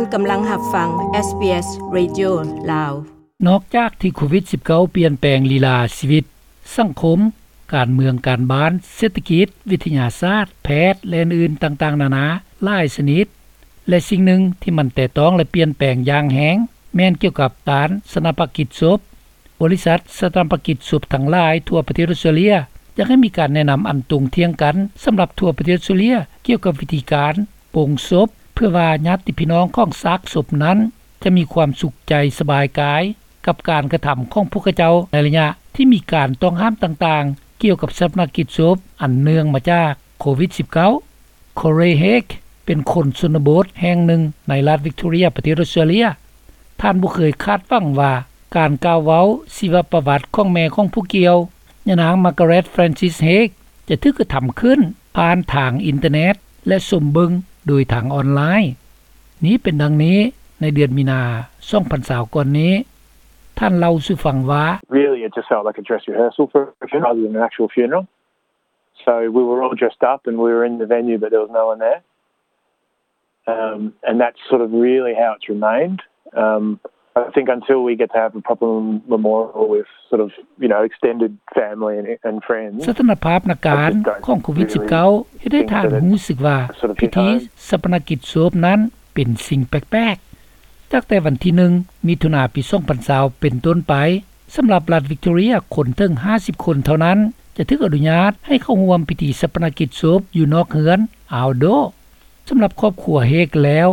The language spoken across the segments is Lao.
ນກຳລັງຮັບຟັງ ເອສບີເອສ ເຣດິໂອ ລາວ. ນອກຈາກທີ່ໂຄວິດສິບເກົ້າ ປ່ຽນແປງລີລາຊີວິດ, ສັງຄົມ, ການເມືອງ, ການບ້ານ, ເສດຖະກິດ, ວິທະຍາສາດ, ແພດ ແລະ ອື່ນໆຕ່າງໆນານາຫຼາຍຊະນິດ ແລະ ສິ່ງໜຶ່ງທີ່ມັນແຕະຕ້ອງ ແລະ ປ່ຽນແປງຢ່າງແຮງ ແມ່ນກ່ຽວກັບການສະໜາປະກິດສົບ. ບໍລິສັດສະໜາປະກິດສົບທັງຫຼາຍທົ່ວປະເທດອົດສະຕຣາເລຍ ຢາກໃຫ້ມີການແນະນຳອັນຕົງທ່ຽງກັນສຳລັບທົ່ວປະເທດອົດສະຕຣາເລຍ ກ່ຽວກັບວິທີການປົງສົບ ເພື່ອວ່າຍາດຕິພີ່ນ້ອງຂອງຊາກສົບນັ້ນ ຈະມີຄວາມສຸກໃຈສະບາຍກາຍ ກັບການກະທຳຂອງພວກເຂົາເຈົ້າ ໃນໄລຍະທີ່ມີການຕ້ອງຫ້າມຕ່າງໆ ກ່ຽວກັບສາປະນະກິດສົບ ອັນເນື່ອງມາຈາກໂຄວິດສິບເກົ້າ. ໂຄເຣ ເຮກ ເປັນຄົນຊົນນະບົດແຫ່ງໜຶ່ງໃນລັດວິກໂຕເຣຍ ປະເທດອົດສະຕຣາເລຍ. ທ່ານບໍ່ເຄີຍຄາດຫວັງວ່າການກ່າວເວົ້າຊີວະປະຫວັດຂອງແມ່ຂອງຜູ້ກ່ຽວ, ຍານາງ ມາກາເຣດ ແຟຣນຊິສ ເຮກ ຈະຖືກກະທຳຂຶ້ນຜ່ານທາງອິນເຕີເນັດ ແລະ ຊົມເບິ່ງໂດຍທາງອອນລາຍ. ນີ້ເປັນດັ່ງນີ້, ໃນເດືອນມີນາ ສອງພັນຊາວ ກ່ອນນີ້, ທ່ານເລົ່າສູ່ຟັງວ່າ Really, it just felt like a dress rehearsal for a funeral rather than an actual funeral. So we were all dressed up and we were in the venue, but there was no one there. Um, and that's sort of really how it's remained. Um, I think until we get to have a proper memorial with sort of, you know, extended family and, and friends, ສະຖານະພາບນາການຂອງໂຄວິດສິບເກົ້າ ເຮັດໃຫ້ທ່ານຮູ້ສຶກວ່າພິທີສາປະນະກິດສົບນັ້ນເປັນສິ່ງແປກໆ. ຕັ້ງແຕ່ວັນທີໜຶ່ງ ມິຖຸນາ ປີສອງພັນຊາວ ເປັນຕົ້ນໄປ, ສຳລັບລັດວິກໂຕເຣຍ ຄົນເຖິງຫ້າສິບຄົນເທົ່ານັ້ນ ຈະຖືກອະນຸຍາດໃຫ້ເຂົ້າຮ່ວມພິທີສາປະນະກິດສົບຢູ່ນອກເຮືອນ outdoor. ສຳລັບຄອບຄົວເຮກແລ້ວ,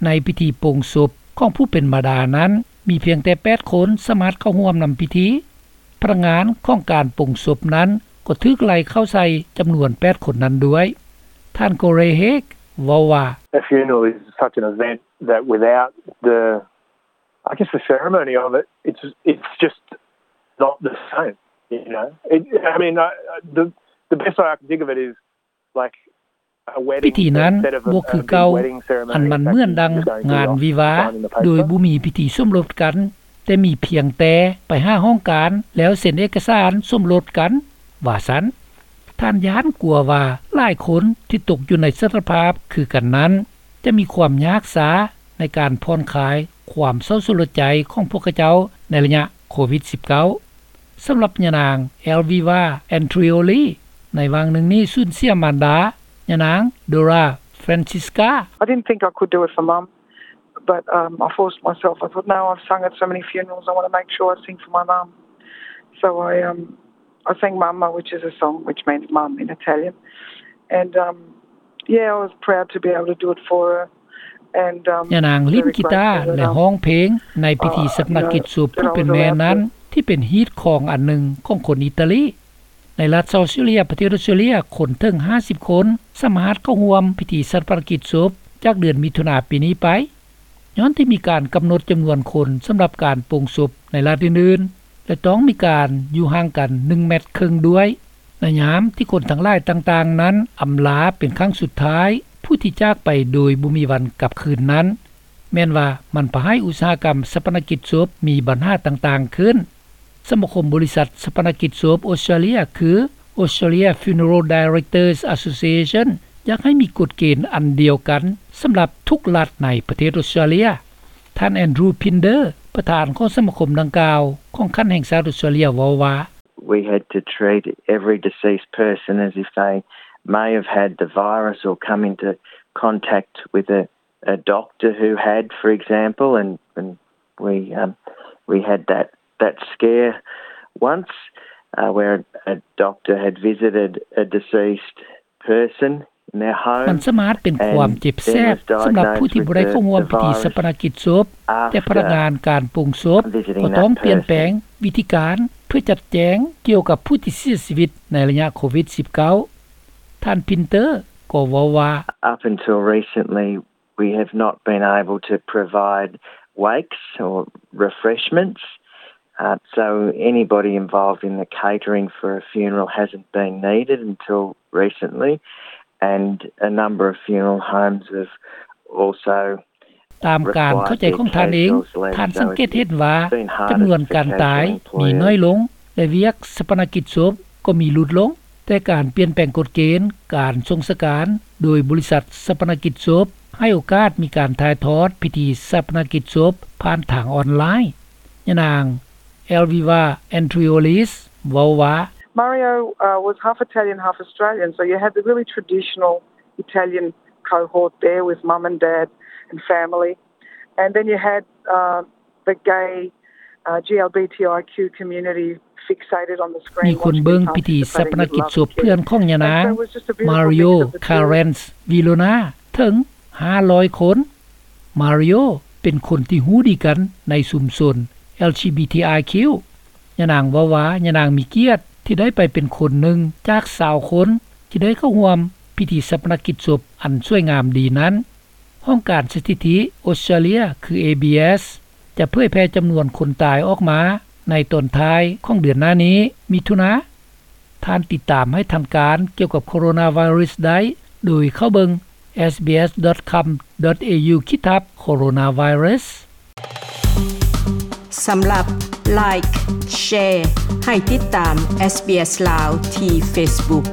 ໃນພິທີປົງສົບຂອງຜູ້ເປັນມາດານັ້ນ ມີພຽງແຕ່ແປດຄົນສາມາດເຂົ້າຮ່ວມນຳພິທີ. ພະນັກງານຂອງການປົງສົບນັ້ນກໍຖືກໄລ່ເຂົ້າໃສ່ຈຳນວນແປດຄົນນັ້ນດ້ວຍ. ທ່ານ ໂຄເຣ ເຮກ ເວົ້າວ່າ A funeral is such an event that without the, I guess, the ceremony of it, it's, it's just not the same, you know. It, I mean, I, the, the best way I can think of it is, like, ພິທີນັ້ນບໍ່ຄືເກົ່າ, ອັນມັນເໝືອນດັ່ງງານວິວາ ໂດຍບໍ່ມີພິທີສົມລົດກັນ, ແຕ່ມີພຽງແຕ່ໄປຫາຫ້ອງການ ແລ້ວເຊັນເອກະສານສົມລົດກັນ, ວ່າຊັ້ນ. ທ່ານຢ້ານກົວວ່າຫຼາຍຄົນທີ່ຕົກຢູ່ໃນສະຖານະພາບຄືກັນນັ້ນ ຈະມີຄວາມຍາກຊ້າໃນການຜ່ອນຄາຍຄວາມເສົ້າສະຫຼົດໃຈຂອງພວກເຂົາເຈົ້າໃນໄລຍະໂຄວິດສິບເກົ້າ. ສຳລັບຍານາງ ແອລວີວາ ແອນທຣີໂອລີ ໃນຫວ່າງໜຶ່ງນີ້ສູນເສຍມານດາ, ຍານາງ ໂດຣາ ແຟຣນຊິສກາ. I didn't think I could do it for Mum, but, um, I forced myself. I thought, "No, I've sung at so many funerals, I wanna make sure I sing for my mum." So I, um, I sang Mamma, which is a song which means mum in Italian. And, um, yeah, I was proud to be able to do it for her. And, um, ຍານາງຫຼິ້ນກີຕາ ແລະ ຮ້ອງເພງໃນພິທີສາປະນະກິດສົບຜູ້ເປັນແມ່ນັ້ນ ທີ່ເປັນຮີດຄອງອັນໜຶ່ງຂອງຄົນອີຕາລີ. ໃນລັດເຊົາດ໌ອອສເຕຣເລຍ ປະເທດອອສເຕຣເລຍ, ຄົນເຖິງຫ້າສິບຄົນສາມາດເຂົ້າຮ່ວມພິທີສາປະນະກິດສົບຈາກເດືອນມິຖຸນາປີນີ້ໄປ. ຍ້ອນທີ່ມີການກຳນົດຈຳນວນຄົນສຳລັບການປົງສົບໃນລັດອື່ນໆ ແລະ ຕ້ອງມີການຢູ່ຫ່າງກັນໜຶ່ງແມັດເຄິ່ງດ້ວຍ, ໃນຍາມທີ່ຄົນທັງຫຼາຍຕ່າງໆນັ້ນອຳລາເປັນຄັ້ງສຸດທ້າຍຜູ້ທີ່ຈາກໄປໂດຍບໍ່ມີວັນກັບຄືນນັ້ນ, ແມ່ນວ່າມັນພາໃຫ້ອຸດສາຫະກຳສາປະນະກິດສົບມີບັນຫາຕ່າງໆຂຶ້ນ. ສະມາຄົມບໍລິສັດສາປະນະກິດສົບອົດສະຕຣາເລຍ ຄື Australia Funeral Directors Association ຢາກໃຫ້ມີກົດເກນອັນດຽວກັນສຳລັບທຸກລັດໃນປະເທດອົດສະຕຣາເລຍ. ທ່ານ ແອນດຣູ ພິນເດີ ປະທານຂອງສະມາຄົມດັ່ງກ່າວຂອງຂັ້ນແຫ່ງຊາດອົດສະຕຣາເລຍ ເວົ້າວ່າ We had to treat every deceased person as if they may have had the virus or come into contact with a, a doctor who had, for example, and, and we, um, we had that that scare once, uh, where a doctor had visited a deceased person in their home. ມັນສາມາດເປັນຄວາມເຈັບແສບສຳລັບຜູ້ທີ່ບໍ່ໄດ້ເຂົ້າຮ່ວມພິທີສາປະນະກິດສົບ, ແຕ່ພະນັກງານການປົງສົບກໍຕ້ອງປ່ຽນແປງວິທີການເພື່ອຈັດແຈງກ່ຽວກັບຜູ້ທີ່ເສຍຊີວິດໃນໄລຍະໂຄວິດສິບເກົ້າ. ທ່ານ ພິນເດີ ກໍເວົ້າວ່າ Up until recently, we have not been able to provide wakes or refreshments. Uh, so anybody involved in the catering for a funeral hasn't been needed until recently, and a number of funeral homes have also ຕາມການເຂົ້າໃຈຂອງທ່ານເອງ, ທ່ານສັງເກດເຫັນວ່າຈຳນວນການຕາຍມີໜ້ອຍລົງ ແລະ ວຽກສາປະນະກິດສົບກໍມີຫຼຸດລົງ, ແຕ່ການປ່ຽນແປງກົດເກນການສົ່ງສະການໂດຍບໍລິສັດສາປະນະກິດສົບ ໃຫ້ໂອກາດມີການຖ່າຍທອດພິທີຊາປະນະກິດສົບຜ່ານທາງອອນລາຍ. ຍານາງ Elvira Andreolis ເວົ້າວ່າ Mario uh, was half Italian, half Australian, so you had the really traditional Italian cohort there with mum and dad and family, and then you had uh, the gay uh, GLBTIQ community fixated on the screen. ມີຄົນເບິ່ງພິທີຊາປະນະກິດສົບເພື່ອນຂອງຍານາງ Mario Carens Vilona ເຖິງ ຫ້າຮ້ອຍຄົນ. Mario ເປັນຄົນທີ່ຮູ້ດີກັນໃນຊຸມຊົນ LGBTIQ. ຍານາງເວົ້າວ່າ ຍານາງມີກຽດທີ່ໄດ້ໄປເປັນຄົນໜຶ່ງຈາກຊາວຄົນ ທີ່ໄດ້ເຂົ້າຮ່ວມພິທີຊາປະນະກິດສົບອັນສວຍງາມດີນັ້ນ. ຫ້ອງການສະຖິຕິອົດສະຕຣາເລຍ ຄື ABS ຈະເຜີຍແຜ່ຈຳນວນຄົນຕາຍອອກມາໃນຕອນທ້າຍຂອງເດືອນໜ້ານີ້ ມິຖຸນາ. ທ່ານຕິດຕາມໃຫ້ທັນການກ່ຽວກັບໂຄໂຣນາໄວຣັສໄດ້ ໂດຍເຂົ້າເບິ່ງ sbs.com.au/coronavirus. ສຳລັບ Like Share ໃຫ້ຕິດຕາມ SBS ລາວ ທີ່ Facebook.